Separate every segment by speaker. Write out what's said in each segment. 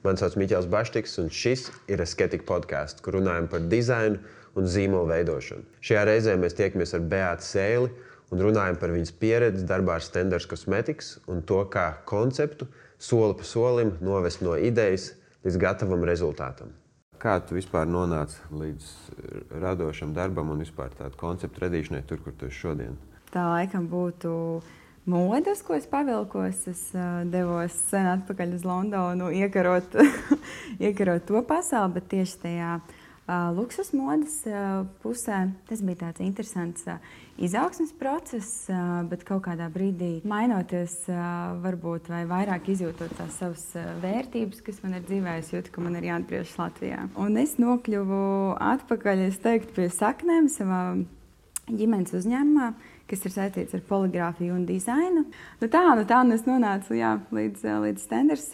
Speaker 1: Mani sauc Miķels Baštiks, un šis ir Aesthetic podcasts, kur runājam par dizainu un zīmolu veidošanu. Šajā reizē mēs tiekamies ar Beātu Sēli un runājam par viņas pieredzi darbā ar Stenders Cosmetics un to, kā konceptu soli pa solim novest no idejas līdz gatavam rezultātam. Kā tu vispār nonāci līdz radošam darbam un vispār tādu konceptu radīšanai tur, kur tu esi šodien?
Speaker 2: Tā laikam būtu modes, ko es pavilkos. Es devos sen atpakaļ uz Londonu iekarot to pasauli, bet tieši tajā luksus modes pusē tas bija tāds interesants izaugsmes process, bet kaut kādā brīdī mainoties varbūt vai vairāk izjūtot tās savas vērtības, kas man ir dzīvē, es jūtu, ka man ir jāatgriežas Latvijā. Un es nokļuvu atpakaļ, es teiktu, pie saknēm savā ģimenes uzņēmumā, kas ir saistīts ar poligrāfiju un dizainu. Nu tā es nonācu līdz Stenders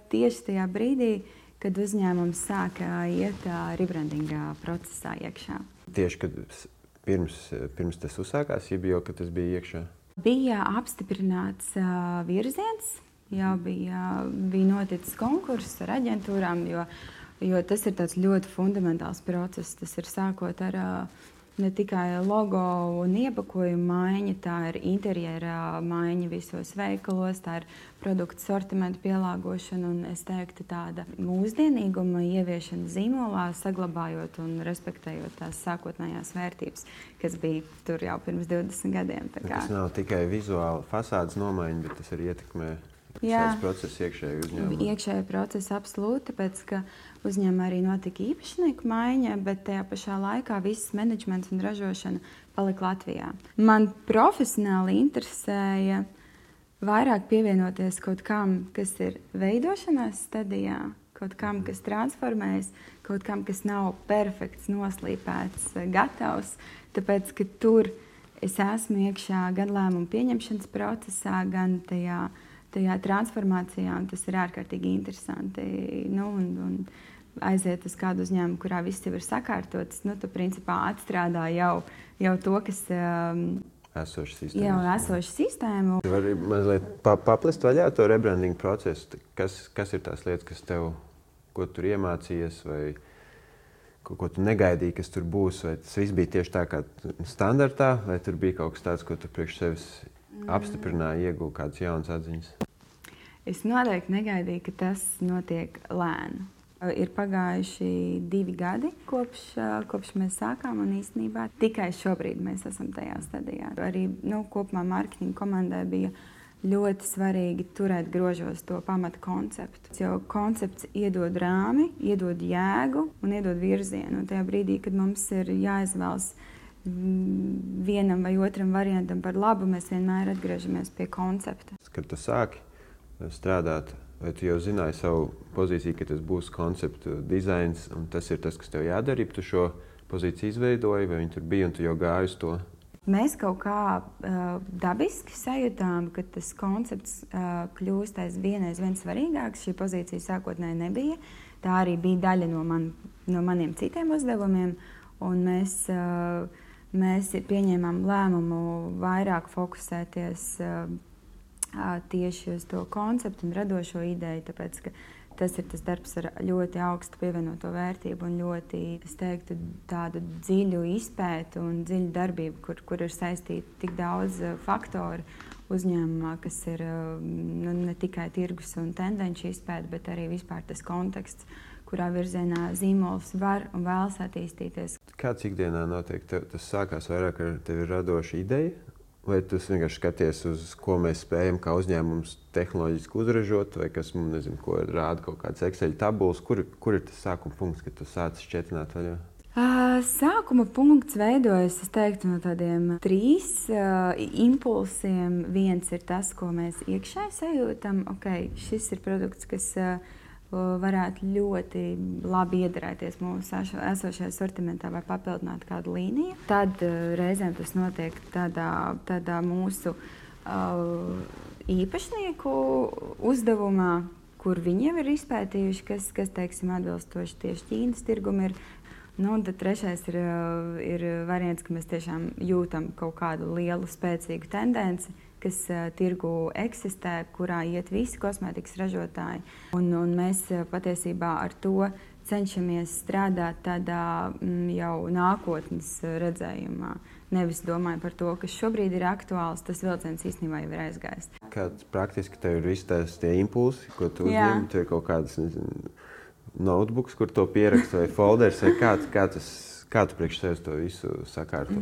Speaker 2: tieši tajā brīdī, kad uzņēmums sāka iet rebrandinga procesā iekšā.
Speaker 1: Tieši, kad pirms tas uzsākās, jau kad tas bija iekšā?
Speaker 2: Bija apstiprināts virziens, jau bija noticis konkurss ar aģentūrām, jo tas ir tāds ļoti fundamentāls process. Tas ir sākot ar ne tikai logo un iepakojuma maiņa, tā ir interjera maiņa visos veikalos, tā ir produktu sortimentu pielāgošana un, es teiktu, tāda mūsdienīguma ieviešana zīmolā, saglabājot un respektējot tās sākotnējās vērtības, kas bija tur jau pirms 20 gadiem.
Speaker 1: Tas nav tikai vizuāli fasādes nomaiņa, bet tas arī ietekmē šāds process iekšēji uzņēmumā.
Speaker 2: Iekšēji procesi absolūti, tāpēc, ka uzņēmumā arī notika īpašnieku maiņa, bet tajā pašā laikā viss menedžments un ražošana palika Latvijā. Man profesionāli interesēja vairāk pievienoties kaut kam, kas ir veidošanās stadijā, kaut kam, kas transformējas, kaut kam, kas nav perfekts, noslīpēts, gatavs, tāpēc, ka tur es esmu iekšā gan lēmumu pieņemšanas procesā, gan tajā transformācijā, un tas ir ārkārtīgi interesanti. Un aiziet uz kādu uzņēmumu, kurā viss jau ir sakārtots, tu principā atstrādā jau to, kas esoša sistēma.
Speaker 1: Tu vari mazliet paplest vaļā to rebrandingu procesu. Kas ir tās lietas, ko tur iemācījies, vai ko tu negaidīji, kas tur būs? Vai tas viss bija tieši tā kā standartā, vai tur bija kaut kas tāds, ko tu priekš sevis apstiprināji, ieguva kādas jaunas atziņas?
Speaker 2: Es noteikti negaidīju, ka tas notiek lēni. Ir pagājuši 2 gadi, kopš mēs sākām, un īstenībā tikai šobrīd mēs esam tajā stadijā. Arī kopumā mārketinga komandai bija ļoti svarīgi turēt grožos to pamata konceptu. Jo koncepts iedod rāmi, iedod jēgu un iedod virzienu. Un tajā brīdī, kad mums ir jāizvēlas vienam vai otram variantam par labu, mēs vienmēr atgriežamies pie koncepta.
Speaker 1: Kad tu sāki strādāt, vai tu jau zināji savu pozīciju, ka tas būs konceptu dizains, un tas ir tas, kas tev jādara, ja tu šo pozīciju izveidoji, vai viņi tur bija, un tu jau gāji uz to?
Speaker 2: Mēs kaut kā dabiski sajūtām, ka tas koncepts kļūst aizvien svarīgāks. Šī pozīcija sākotnēji nebija. Tā arī bija daļa no maniem citiem uzdevumiem, un mēs pieņēmām lēmumu vairāk fokusēties tieši uz to konceptu un radošo ideju, tāpēc, ka tas ir tas darbs ar ļoti augstu pievienoto vērtību un ļoti, es teiktu, tādu dziļu izpētu un dziļu darbību, kur ir saistīti tik daudz faktoru uzņēmumā, kas ir ne tikai tirgus un tendenci izpēta, bet arī vispār tas konteksts, kurā virzienā zīmols var un vēlas attīstīties.
Speaker 1: Kāds ikdienā notiek? Tas sākās vairāk ar tevi radoša ideja? Vai tu vienkārši skaties, uz ko mēs spējam kā uzņēmums tehnoloģiski uzražot, vai kas mums, nezinu, ko rāda kaut kāds Excel tabulas? Kur ir tas sākuma punkts, kad tu sāc šķietināt vaļā?
Speaker 2: Sākuma punkts veidojas, es teiktu, no tādiem 3 impulsiem. Viens ir tas, ko mēs iekšēji sajūtam. Šis ir produkts, kas varētu ļoti labi iederēties mūsu esošajā sortimentā vai papildināt kādu līniju. Tad reizēm tas notiek tādā mūsu īpašnieku uzdevumā, kur viņi jau ir izpētījuši, kas teiksim, atbilstoši tieši Ķīnas tirgum ir. Tad trešais ir variants, ka mēs tiešām jūtam kaut kādu lielu, spēcīgu tendenci, kas tirgu eksistē, kurā iet visi kosmētikas ražotāji. Un mēs patiesībā ar to cenšamies strādāt tādā jau nākotnes redzējumā. Nevis domāju par to, kas šobrīd ir aktuāls, tas vilciens īstenībā jau ir aizgājis.
Speaker 1: Kāds praktiski tev ir visi tie impulsi, ko tu uzņem? Tev ir kaut kādas notebooks, kur to pierakst vai folders, vai kā tu priekš sevis to visu sakārto?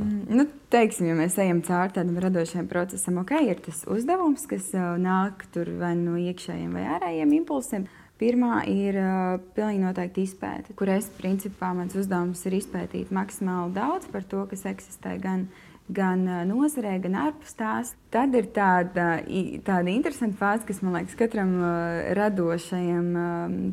Speaker 2: Teiksim, ja mēs ejam cauri tādam radošajam procesam, ir tas uzdevums, kas nāk tur vai no iekšējiem vai ārējiem impulsiem. Pirmā ir pilnīgi noteikti izpēte, kur principā mans uzdevums ir izpētīt maksimāli daudz par to, kas eksistē gan nozarē, gan ārpus tās. Tad ir tāda interesanta fāze, kas, man liekas, katram radošajam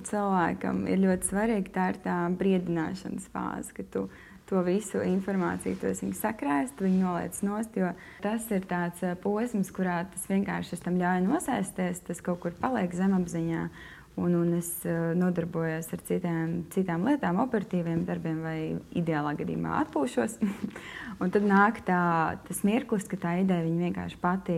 Speaker 2: cilvēkam ir ļoti svarīga. Tā ir tā briedināšanas fāze, ka tu to visu informāciju sakrājas, tu viņu noliec nost, jo tas ir tāds posms, kurā tas vienkārši tam ļauj nosēsties, tas kaut kur paliek zemapziņā. Un es nodarbojos ar citām lietām, operatīviem darbiem vai ideālā gadījumā atpūšos. Un tad nāk tas mirklis, ka tā ideja vienkārši pati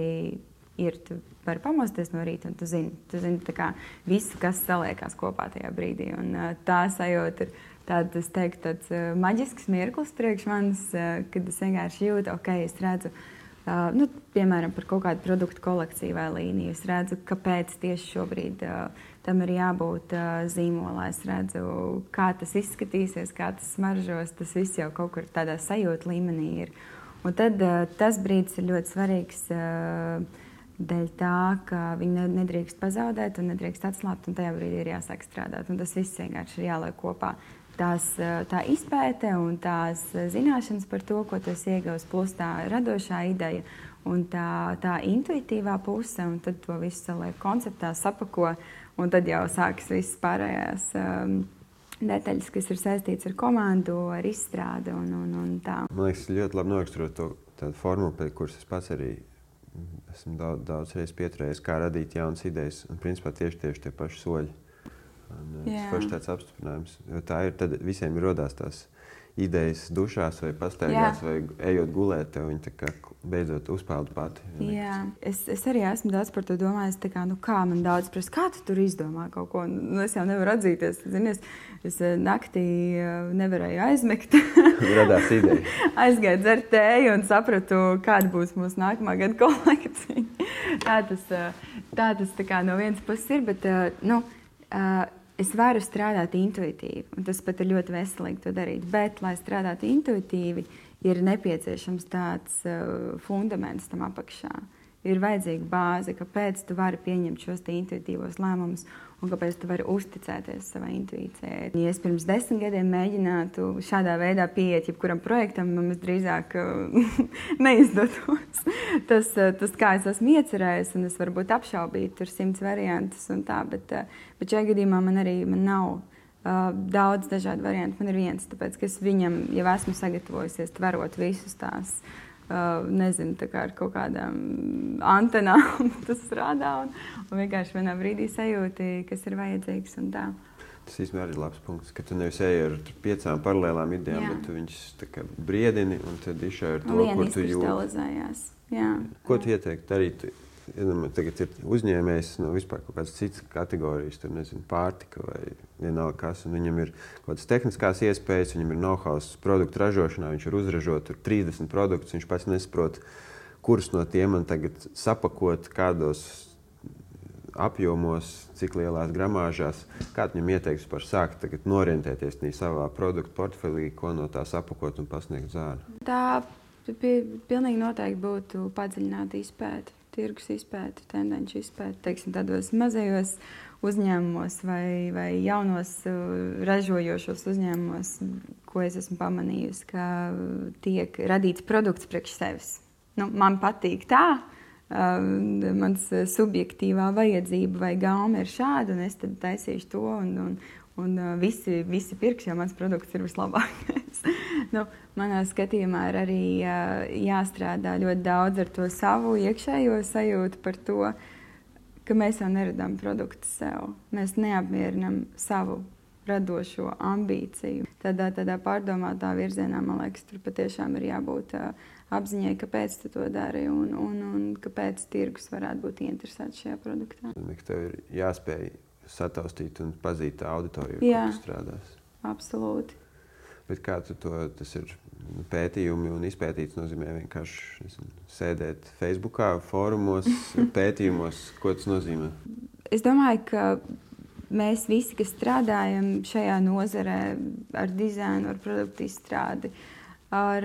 Speaker 2: ir. Tu vari pamosties no rīta un tu zini tā kā visu, kas saliekās kopā tajā brīdī. Un tā sajūta ir tāds maģisks mirklis priekš manis, kad es vienkārši jūtu, es redzu, piemēram, par kaut kādu produktu kolekciju vai līniju. Es redzu, kāpēc tieši šobrīd tam ir jābūt zīmolā. Es redzu, kā tas izskatīsies, kā tas smaržos. Tas viss jau kaut kur tādā sajūta līmenī ir. Un tad tas brīdis ir ļoti svarīgs dēļ tā, ka viņi nedrīkst pazaudēt un nedrīkst atslābt, un tajā brīdī ir jāsāk strādāt. Un tas viss vienkārši ir jāliek kopā. Tā izpēte un tās zināšanas par to, ko tu esi ieguvis, plus tā radošā ideja un tā intuitīvā puse, un tad to visu saliek konceptā, sapako, un tad jau sākas visas pārējās detaļas, kas ir saistīts ar komandu, ar izstrādi un tā.
Speaker 1: Man liekas, ļoti labi noraksturot tādu formulu, pēc kuras es pats arī esmu daudz reizes pieturējies, kā radīt jaunas idejas, un principā tieši tie paši soļi. Tas forši tāds apstiprinājums, jo tā ir, tad visiem ir rodās tās idejas dušās vai pastaigās vai ejot gulēt, tev viņi tā kā beidzot uzpeld pati.
Speaker 2: Jā, es arī esmu daudz par to domājis, tā kā, kā man daudz prasa, kā tu tur izdomā kaut ko, es jau nevaru atzīties, zinies, es naktī nevarēju aizmigt.
Speaker 1: Radās ideja.
Speaker 2: Aizgāju dzert tēju un sapratu, kāda būs mūsu nākamā gada kolekcija. Tā tas tā kā no vienas puses ir, bet, es varu strādāt intuitīvi, un tas pat ir ļoti veselīgi to darīt. Bet, lai strādātu intuitīvi, ir nepieciešams tāds fundaments tam apakšā. Ir vajadzīga bāze, kāpēc tu vari pieņemt šos intuitīvos lēmumus un kāpēc tu vari uzticēties savai intuīcijai. Ja es pirms 10 gadiem mēģinātu šādā veidā pieiet jebkuram projektam, man drīzāk neizdotos. Tas, kā es esmu iecerējis, un es varbūt apšaubīt tur 100 variantus un tā, bet šajā gadījumā man nav daudz dažādu variantu. Man ir viens, tāpēc, ka es viņam jau esmu sagatavojusies tverot visus tās, nezinu, tā kā ar kaut kādām antenām tas strādā un vienkārši vienā brīdī sajūti, kas ir vajadzīgs un tā.
Speaker 1: Tas īstenībā arī ir labs punkts, ka tu nevis eji ar 5 paralēlām idejām, bet tu viņus tā kā briedini un tad išai ar to, kur tu jūti. Ko tu ieteiktu darīt? Tagad ir uzņēmējs no vispār kaut kādas citas kategorijas, tur nezinu, pārtika vai vienalga kas, un viņam ir kaut kādas tehniskās iespējas, viņam ir know-hows produktu ražošanā, viņš ir uzražot 30 produktus, viņš pats nesaprot, kurus no tiem man tagad sapakot, kādos apjomos, cik lielās gramāžās, kā viņam ieteikts par sākt tagad norientēties savā produktu portfelī, ko no tā sapakot un pasniegt zāli?
Speaker 2: Tā pilnīgi noteikti būtu padziļināta izpēte. Tirgus izpēti, tendenci izpēti, teiksim, tādos mazajos uzņēmumos vai jaunos ražojošos uzņēmumos, ko es esmu pamanījusi, ka tiek radīts produkts priekš sevis. Man patīk tā, mans subjektīvā vajadzība vai gauma ir šāda, un es tad taisīšu to, un visi pirks, jo mans produkts ir vislabākais. Manā skatījumā ir arī jāstrādā ļoti daudz ar to savu iekšējo sajūtu par to, ka mēs jau neradām produktu sev. Mēs neapmierinām savu radošo ambīciju. Tādā pārdomātā virzienā, man liekas, tur patiešām ir jābūt apziņai, kāpēc tu to dari un kāpēc tirgus varētu būt interesēts šajā produktā.
Speaker 1: Tev ir jāspēj sataustīt un pazīt tā auditoriju, kur tu strādās.
Speaker 2: Absolūti.
Speaker 1: Bet kā tas ir pētījumi un izpētīts nozīmē vienkārši sēdēt Facebookā, fórumos, pētījumos? Ko tas nozīmē?
Speaker 2: Es domāju, ka mēs visi, kas strādājam šajā nozarē ar dizainu, ar produktu izstrādi, ar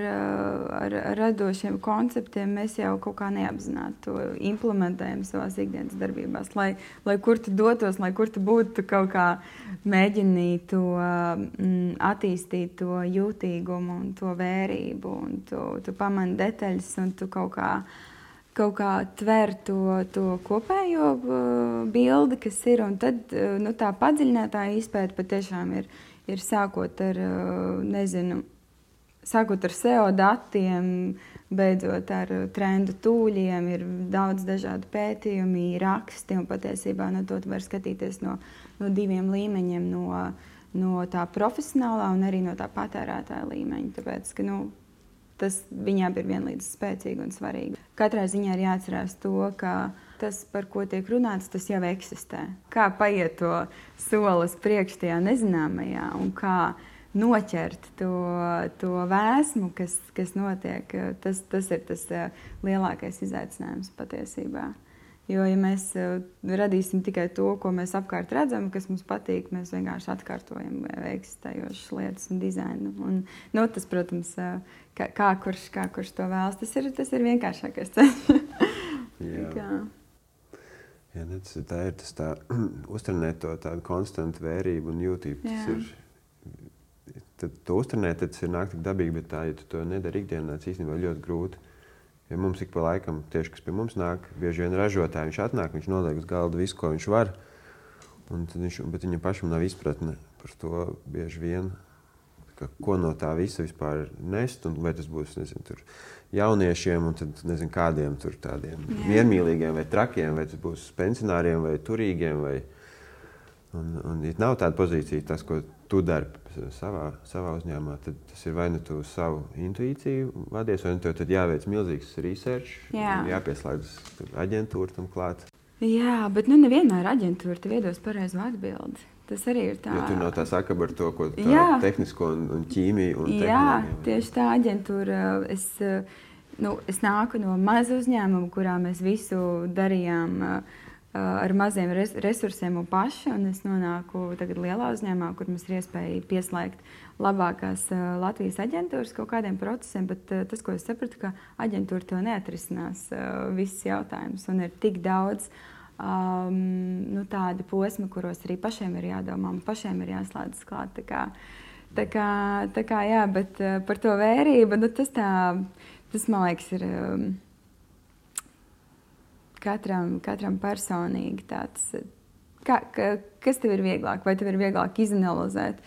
Speaker 2: radošiem konceptiem, mēs jau kaut kā neapzināti to implementējam savās ikdienas darbībās. Lai kur tu dotos, lai kur tu būtu, tu kaut kā mēģini to attīstīt, to jūtīgumu un to vērību, un tu pamani detaļas, un tu kaut kā tver to kopējo bildi, kas ir, un tad tā padziļinātā izpēta patiešām ir sākot ar, sākot ar SEO datiem, beidzot ar trendu tūļiem, ir daudz dažādu pētījumi, raksti, un patiesībā to var skatīties no diviem līmeņiem, no tā profesionālā un arī no tā patērētāja līmeņa, tāpēc, ka tas viņām ir vienlīdz spēcīgi un svarīgi. Katrā ziņā ir jāatcerās to, ka tas, par ko tiek runāts, tas jau eksistē. Kā paiet to solis priekš tajā nezināmajā un kā noķert to vēsmu, kas notiek, tas ir tas lielākais izaicinājums patiesībā. Jo, ja mēs radīsim tikai to, ko mēs apkārt redzam, kas mums patīk, mēs vienkārši atkārtojam eksistējošas lietas un dizainu. Un, tas, protams, kā kurš to vēlas, tas ir vienkāršākais ceļš.
Speaker 1: Tā ir tā uztrenēt to tādu konstantu vērību un jūtību. Tad to uztrenēt, tas ir nāk tik dabīgi, bet ja tu to nedari ikdienā, tas īstenībā ļoti grūti. Ja mums ik pa laikam, tieši kas pie mums nāk, bieži vien ražotāji, viņš atnāk, viņš noliek uz galda visu, ko viņš var, bet viņam pašam nav izpratne par to bieži vien, ko no tā visa vispār nest, un vai tas būs, tur jauniešiem, un tad, kādiem tur tādiem miermīlīgiem vai trakiem, vai tas būs pensionāriem vai turīgiem, un ja nav tāda pozīcija, tas, ko tu dari savā uzņēmumā, tad tas ir vai nu tu savu intuīciju vadies, vai nu tev tad jāveic milzīgs research, jāpieslēdz aģentūra tam klāt.
Speaker 2: Jā, bet nevienmēr aģentūra tev iedos pareizo atbildi. Tas arī ir tā.
Speaker 1: Jo tur nav tā sakaba ar to, ko tehnisko un ķīmiju un tehnoloģiju.
Speaker 2: Jā, tieši tā aģentūra. Es nāku no maza uzņēmuma, kurā mēs visu darījām ar maziem resursiem un paši, un es nonāku tagad lielā uzņēmumā, kur mums ir iespēja pieslēgt labākās Latvijas aģentūras kaut kādiem procesiem, bet tas, ko es sapratu, ka aģentūra to neatrisinās visus jautājumus, un ir tik daudz tādi posmi, kuros arī pašiem ir jādomā, un pašiem ir jāslēdzas klāt. Tā kā jā, bet par to vērību, tas man liekas ir katram personīgi tāds, kas tev ir vieglāk? Vai tev ir vieglāk izanalizēt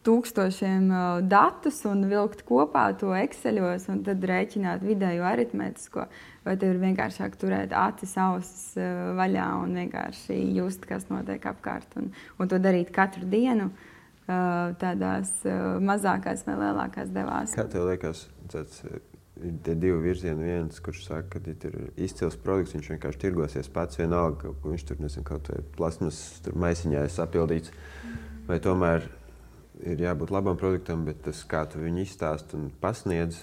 Speaker 2: tūkstošiem datus un vilkt kopā to Exceļos un tad rēķināt vidējo aritmētisko? Vai tev ir vienkāršāk turēt acis, ausis vaļā un vienkārši just, kas notiek apkārt un to darīt katru dienu tādās mazākās vai lielākās devās?
Speaker 1: Kā tev liekas, ir tie divi virzieni, viens, kurš saka, ka ja ir izcils produkts, viņš vienkārši tirgosies pats vienalga, ka viņš tur, kaut vai plasmas maisiņā ir sapildīts, vai tomēr ir jābūt labam produktam, bet tas, kā tu viņu izstāst un pasniedz,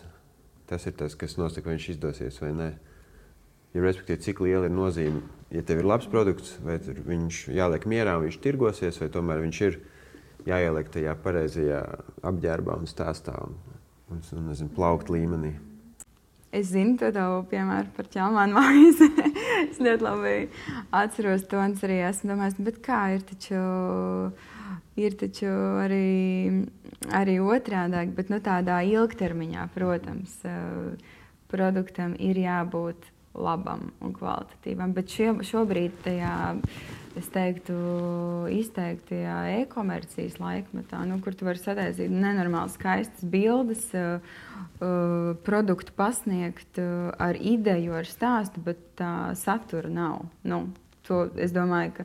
Speaker 1: tas ir tas, kas nosaka, vai viņš izdosies vai nē. Ja respektīvi, cik liela ir nozīme, ja tev ir labs produkts, vai viņš jāliek mierā un viņš tirgosies, vai tomēr viņš ir jāieliek tajā pareizajā apģērbā un stāstā un plaukt līmenī.
Speaker 2: Es zinu to tavu piemēru par ķelmānu maizi. Es ļoti labi atceros to, un arī esmu domājis, bet kā ir taču arī otrādāk, bet tādā ilgtermiņā, protams, produktam ir jābūt labam un kvalitatīvam, bet šobrīd tajā, es teiktu, izteiktajā e-komercijas laikmetā, kur tu vari sataisīt nenormāli skaistas bildes, produktu pasniegt ar ideju, ar stāstu, bet tā satura nav. Es domāju, ka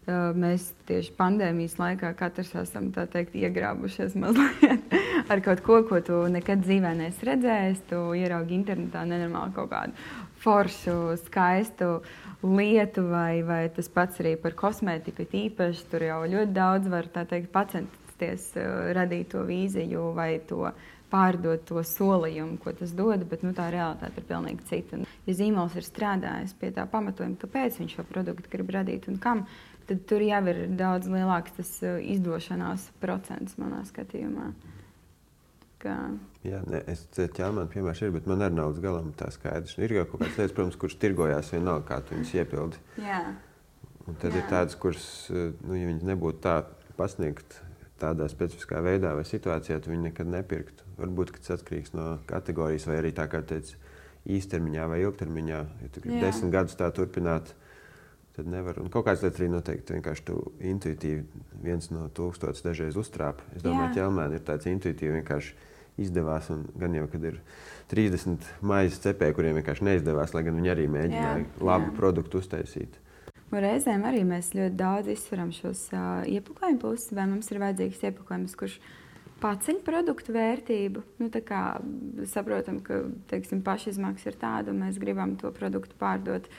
Speaker 2: Mēs tieši pandēmijas laikā katrs esam, tā teikt, iegrābušies mazliet ar kaut ko, ko tu nekad dzīvē neesi redzējis. Tu ieraugi internetā nenormāli kaut kādu foršu, skaistu lietu, vai tas pats arī par kosmētiku īpaši. Tur jau ļoti daudz var, tā teikt, pacensties radīt to vīziju vai to pārdot to solījumu, ko tas dod, bet tā realitāte ir pilnīgi cita. Ja zīmols ir strādājis pie tā pamatojuma, kāpēc viņš šo produktu grib radīt un kam, tad tur jau ir daudz lielāks tas izdošanās procents manā skatījumā.
Speaker 1: Jā, es ķelmēnu piemērs ir, bet man arī nav līdz galam tā skaidrs. Ir jau kaut kādas lietas, protams, kuras tirgojās vienalga, kā tu viņas iepildi.
Speaker 2: Jā.
Speaker 1: Un tad ir tādas, kuras, ja viņas nebūtu tā pasniegt tādā specifiskā veidā vai situācijā, tu viņi nekad nepirktu. Varbūt, ka tas atkarīgs no kategorijas vai arī tā, kā teici, īstermiņā vai ilgtermiņā. Ja tu gribi 10 gadus tā turpināt, tad nevar. Un kaut kāds lietas arī noteikti vienkārši tu intuitīvi 1 no 1000 dažreiz uztrāpi. Es domāju, ķelmēni ir tāds intuitīvi vienkārši izdevās, un gan jau, kad ir 30 maizes cepēji, kuriem vienkārši neizdevās, lai gan viņi arī mēģināja labu produktu uztaisīt.
Speaker 2: Un reizēm arī mēs ļoti daudz izsveram šos iepakojumu puses, vai mums ir vajadzīgs iepakojums, kurš paceļ produktu vērtību. Tā kā saprotam, ka, teiksim, pašizmaksa ir tāda, un mēs gribam to produktu pārdot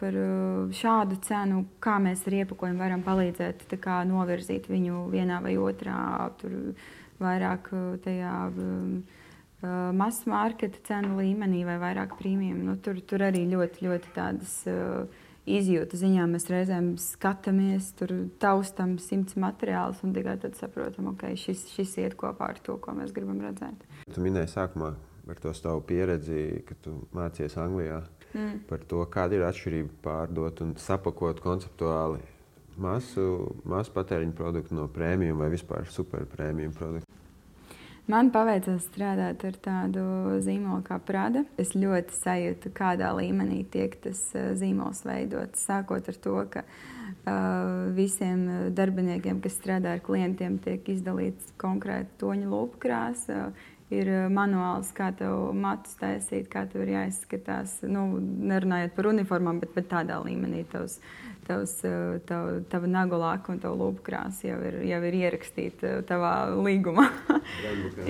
Speaker 2: par šādu cenu, kā mēs ar iepakojumu varam palīdzēt novirzīt viņu vienā vai otrā, tur vairāk tajā mass marketa cenu līmenī vai vairāk prīmijam. Tur arī ļoti, ļoti tādas izjūta ziņā mēs reizēm skatāmies, tur taustam 100 materiālus un tikai tad saprotam, ok, šis iet kopā ar to, ko mēs gribam redzēt. Tu
Speaker 1: minēji sākumā par to savu pieredzi, ka tu mācies Anglijā, par to, kāda ir atšķirība pārdot un sapakot konceptuāli masu patēriņu produktu no prēmijuma vai vispār superprēmijuma produktu.
Speaker 2: Man paveicās strādāt ar tādu zīmolu kā Prada. Es ļoti sajūtu, kādā līmenī tiek tas zīmols veidots. Sākot ar to, ka visiem darbiniekiem, kas strādā ar klientiem, tiek izdalīts konkrēti toņu lūpu krāsa. Ir manuāls, kā tev matus taisīt, kā tev ir jāizskatās. Nerunājot par uniformām, bet tādā līmenī tava nagu laka un tava lūpu krāsa jau ir ierakstīta tavā līgumā.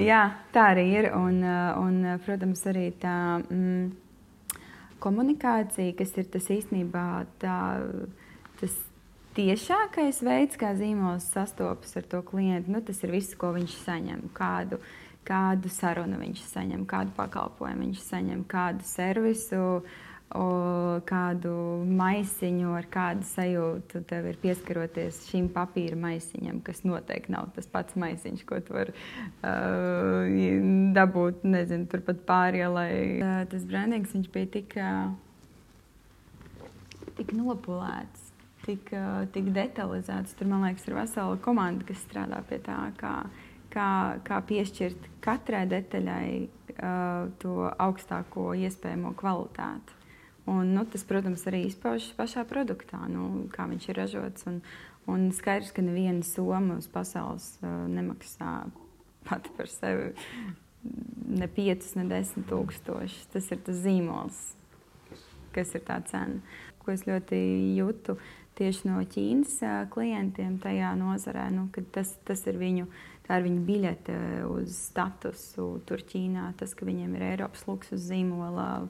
Speaker 2: Jā, tā arī ir. Un protams, arī tā komunikācija, kas ir tas īstenībā tas tiešākais veids, kā zīmols sastopas ar to klientu. Tas ir viss, ko viņš saņem. Kādu sarunu viņš saņem, kādu pakalpojumu viņš saņem, kādu servisu, kādu maisiņu, ar kādu sajūtu tev ir pieskaroties šim papīra maisiņam, kas noteikti nav tas pats maisiņš, ko tu vari dabūt, nezinu, turpat pārielai. Tas brandings, viņš bija tik nopulēts, tik detalizēts. Tur, man liekas, ir vesela komanda, kas strādā pie tā, kā piešķirt katrai detaļai to augstāko iespējamo kvalitāti. Un, tas, protams, arī izpaužas pašā produktā, kā viņš ir ražots. Un skaidrs, ka neviena soma uz pasaules nemaksā pati par sevi ne 5, ne 10 tūkstoši. Tas ir tas zīmols, kas ir tā cena. Ko es ļoti jūtu tieši no Ķīnas klientiem tajā nozarē, kad tas ir viņu biļete uz statusu tur Ķīnā, tas, ka viņiem ir Eiropas luksus zīmola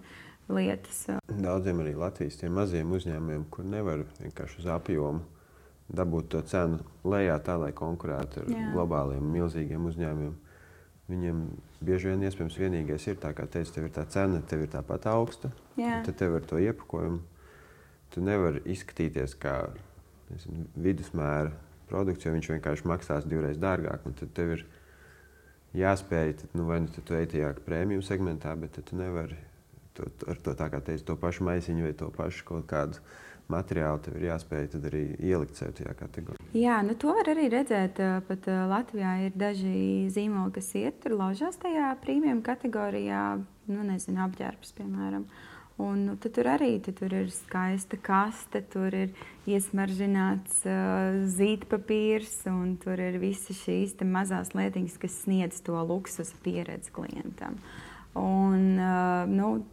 Speaker 2: lietas.
Speaker 1: Daudziem arī Latvijas tiem maziem uzņēmumiem, kur nevar vienkārši uz apjomu dabūt to cenu lejā tā, lai konkurētu ar globāliem milzīgiem uzņēmumiem. Viņiem bieži vien iespējams vienīgais ir tā, kā teicu, tev ir tā cena, tev ir tāpat augsta, tad tev ar to iepakojumu. Tu nevari izskatīties kā vidusmēra produkts, jo viņš vienkārši maksās 2 dārgāk. Un tad tev ir jāspēj, vai tu ej tajā prēmiju segmentā, bet tu nevari ar to, tā kā teici, to pašu maisiņu vai to pašu kaut kādu materiālu, tev ir jāspēj tad arī ielikt sev tajā kategorijā.
Speaker 2: Jā, to var arī redzēt. Pat Latvijā ir daži zīmoli, kas iet tur laužās tajā prēmiju kategorijā, apģērbs, piemēram. Un tad tur arī tur ir skaista kaste, tur ir iesmaržināts zīdpapīrs, un tur ir visas šīs mazās lietiņas, kas sniedz to luksusa pieredzi klientam. Un,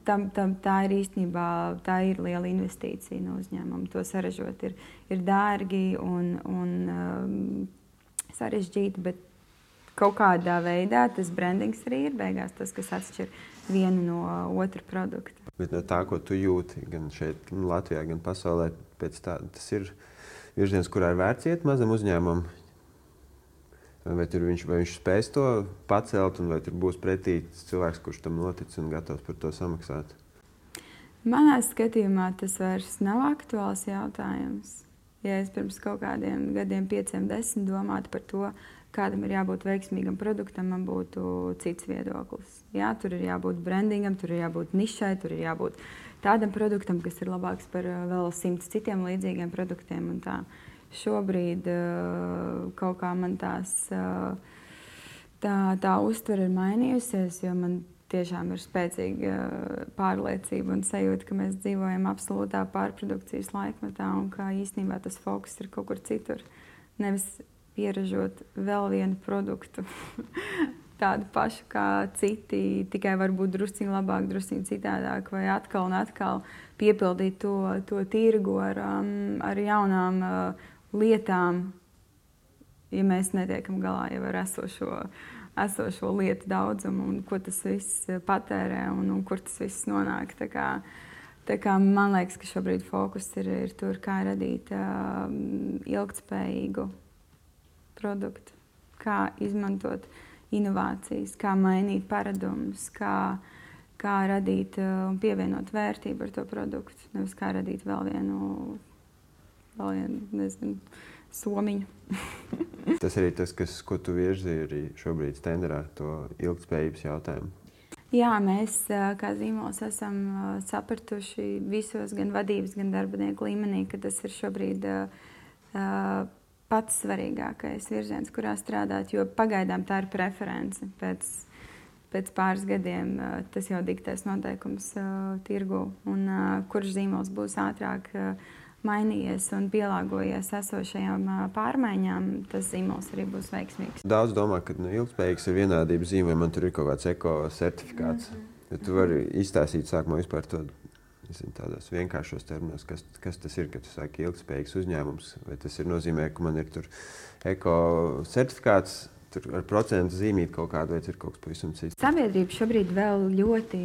Speaker 2: tā ir īstenībā liela investīcija no uzņēmuma. To saražot ir dārgi un sarežģīti, bet kaut kādā veidā tas brandings arī ir beigās tas, kas atšķir vienu no otra produkta.
Speaker 1: Bet no tā, ko tu jūti gan šeit, gan Latvijā, gan pasaulē, tas ir virziens, kurā ir vērts iet mazam uzņēmumam? Vai viņš spēs to pacelt, un vai tur būs pretī cilvēks, kurš tam notic un gatavs par to samaksāt?
Speaker 2: Manā skatījumā tas vairs nav aktuāls jautājums. Ja es pirms kaut kādiem gadiem, 5, 10 domātu par to, kādam ir jābūt veiksmīgam produktam, man būtu cits viedoklis. Jā, tur ir jābūt brandingam, tur ir jābūt nišai, tur ir jābūt tādam produktam, kas ir labāks par vēl 100 citiem līdzīgiem produktiem. Un tā. Šobrīd kaut kā man tā uztvere ir mainījusies, jo man tiešām ir spēcīga pārliecība un sajūta, ka mēs dzīvojam absolūtā pārprodukcijas laikmetā un ka īstenībā tas fokus ir kaut kur citur. Nevis pieražot vēl vienu produktu, tādu pašu kā citi, tikai varbūt drusciņi labāk, drusciņi citādāk, vai atkal un atkal piepildīt to tirgu ar jaunām lietām, ja mēs netiekam galā jau ar esošo lietu daudzumu un ko tas viss patērē un kur tas viss nonāk. Tā kā man liekas, ka šobrīd fokus ir tur, kā radīt ilgtspējīgu produktu, kā izmantot inovācijas, kā mainīt paradumus, kā radīt un pievienot vērtību ar to produktu, nevis kā radīt vēl vienu nezinu, somiņu.
Speaker 1: Tas arī tas, ko tu virzi arī šobrīd Stenderā, to ilgtspējības jautājumu.
Speaker 2: Jā, mēs kā zīmols esam sapratuši visos gan vadības, gan darbinieku līmenī, ka tas ir šobrīd pats svarīgākais virziens, kurā strādāt, jo pagaidām tā ir preference. Pēc pāris gadiem tas jau diktēs noteikums tirgu, un kurš zīmols būs ātrāk mainījies un pielāgojies esošajām pārmaiņām, tas zīmols arī būs veiksmīgs.
Speaker 1: Daudz domā, ka ilgtspējīgs ir vienādības zīme, vai man tur ir kaut kāds eko-certifikāts. Ja tu vari izstāstīt sākumā vispār to, tādos vienkāršos terminos, kas tas ir, kad tu sāki ilgtspējīgs uzņēmums, vai tas ir nozīmē, ka man ir tur eko-certifikāts, tur ar procentu zīmīt kaut kādu, vai ir kaut kas pavisam cits?
Speaker 2: Sabiedrība šobrīd vēl ļoti,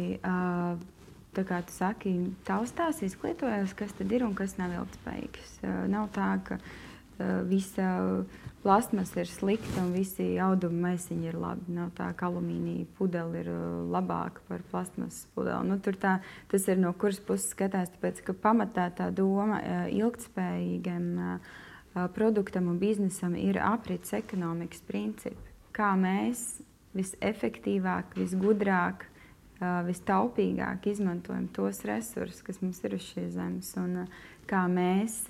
Speaker 2: tā kā tu saki, taustās, izglītojas, kas tad ir un kas nav ilgtspējīgs. Nav tā, ka visa plastmasa ir slikta un visi auduma maisiņi ir labi. Nav tā, ka alumīnija pudele ir labāka par plastmasas pudeli. Tas ir no kuras puses skatās, tāpēc, ka pamatā tā doma ilgtspējīgam produktam un biznesam ir aprits ekonomikas principi. Kā mēs visefektīvāk, visgudrāk, vistaupīgāk izmantojam tos resursus, kas mums ir uz šīs zemes, un kā mēs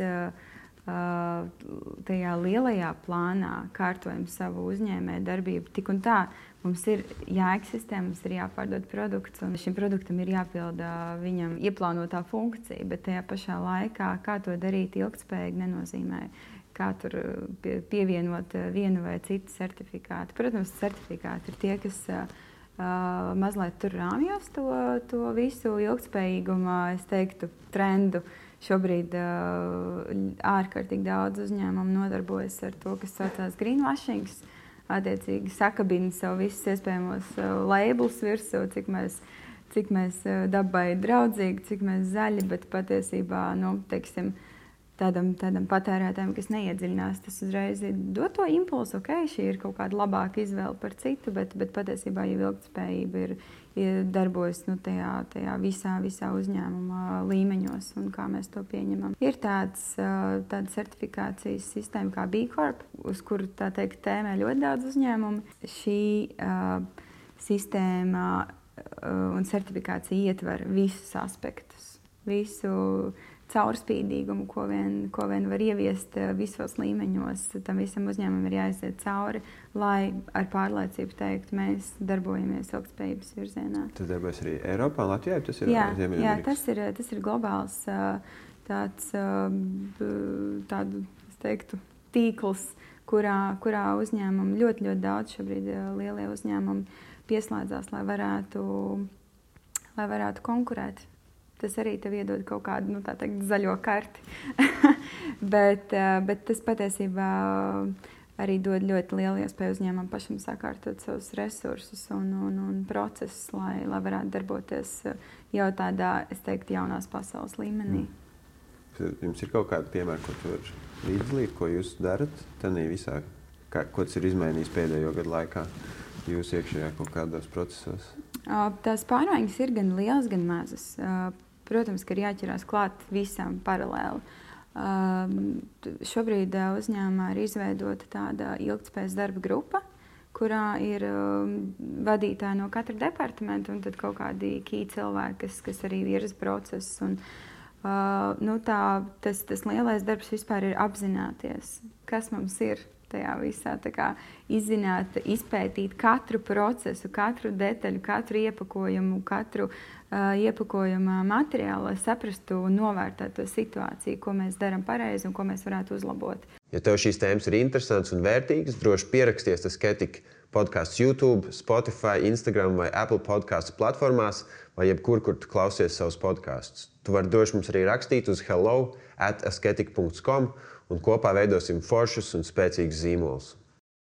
Speaker 2: tajā lielajā plānā kārtojam savu uzņēmēju darbību. Tik un tā mums ir jāeksistē, mums ir jāpārdod produkts, un šim produktam ir jāpilda viņam ieplānotā funkcija, bet tajā pašā laikā, kā to darīt ilgtspējīgi, nenozīmē, kā tur pievienot vienu vai citu certifikātu. Protams, certifikāti ir tie, kas mazliet tur rāmjos to visu ilgtspējīgumu, es teiktu, trendu. Šobrīd ārkārtīgi daudz uzņēmumu nodarbojas ar to, kas saucās greenwashing. Attiecīgi sakabina sev visus iespējamos labelus virsū, cik mēs dabai draudzīgi, cik mēs zaļi, bet patiesībā, teiksim, tādam patērētājam, kas neiedziļinās, tas uzreiz dod to impulsu, šī ir kaut kāda labāka izvēle par citu, bet patiesībā jau ilgtspējība ir darbojas tajā visā uzņēmuma līmeņos un kā mēs to pieņemam. Ir tāda certifikācijas sistēma kā B Corp, uz kuru tā teikt tēmē ļoti daudz uzņēmumu. Šī sistēma un certifikācija ietver visus aspektus, visu caurspīdīgumu, ko vien var ieviest visos līmeņos. Tam visam uzņēmumam ir jāiziet cauri, lai ar pārliecību teikt, mēs darbojamies ilgtspējības virzienā.
Speaker 1: Tas darbojas arī Eiropā un Latvijā? Tas ir
Speaker 2: jā, tas ir globāls tādu, es teiktu, tīkls, kurā uzņēmumi ļoti daudz šobrīd lielie uzņēmumi pieslēdzās, lai varētu lai varētu konkurēt. Tas arī tev iedod kaut kādu, tā teikt, zaļo karti. bet tas patiesībā arī dod ļoti lielu iespēju uzņēmumam pašam sakārtot savus resursus un procesus, lai varētu darboties jau tādā, es teiktu, jaunās pasaules līmenī.
Speaker 1: Jums ir kaut kādi piemēri, ko tu vari līdzdalīt, ko jūs darat tenī visā? Ko tas ir izmainījis pēdējo gadu laikā jūs iekšējā kaut kādos procesos?
Speaker 2: Tās pārmaiņas ir gan lielas, gan mazas. Protams, ka ir jāķerās klāt visām paralēli. Šobrīd uzņēmumā ir izveidota tāda ilgtspējas darba grupa, kurā ir vadītāji no katra departamenta un tad kaut kādi key cilvēki, kas arī virza procesus. Tas lielais darbs vispār ir apzināties, kas mums ir tajā visā, izzināt, izpētīt katru procesu, katru detaļu, katru iepakojumu, katru iepakojuma materiālu, lai saprastu un novērtētu to situāciju, ko mēs darām pareizi un ko mēs varētu uzlabot.
Speaker 1: Ja tev šīs tēmas ir interesantas un vērtīgas, droši pieraksties Asketik podcasts YouTube, Spotify, Instagram vai Apple podcastu platformās vai jebkur, kur tu klausies savus podkastus. Tu vari droši mums arī rakstīt uz hello@asketik.com un kopā veidosim foršus un spēcīgus zīmolus.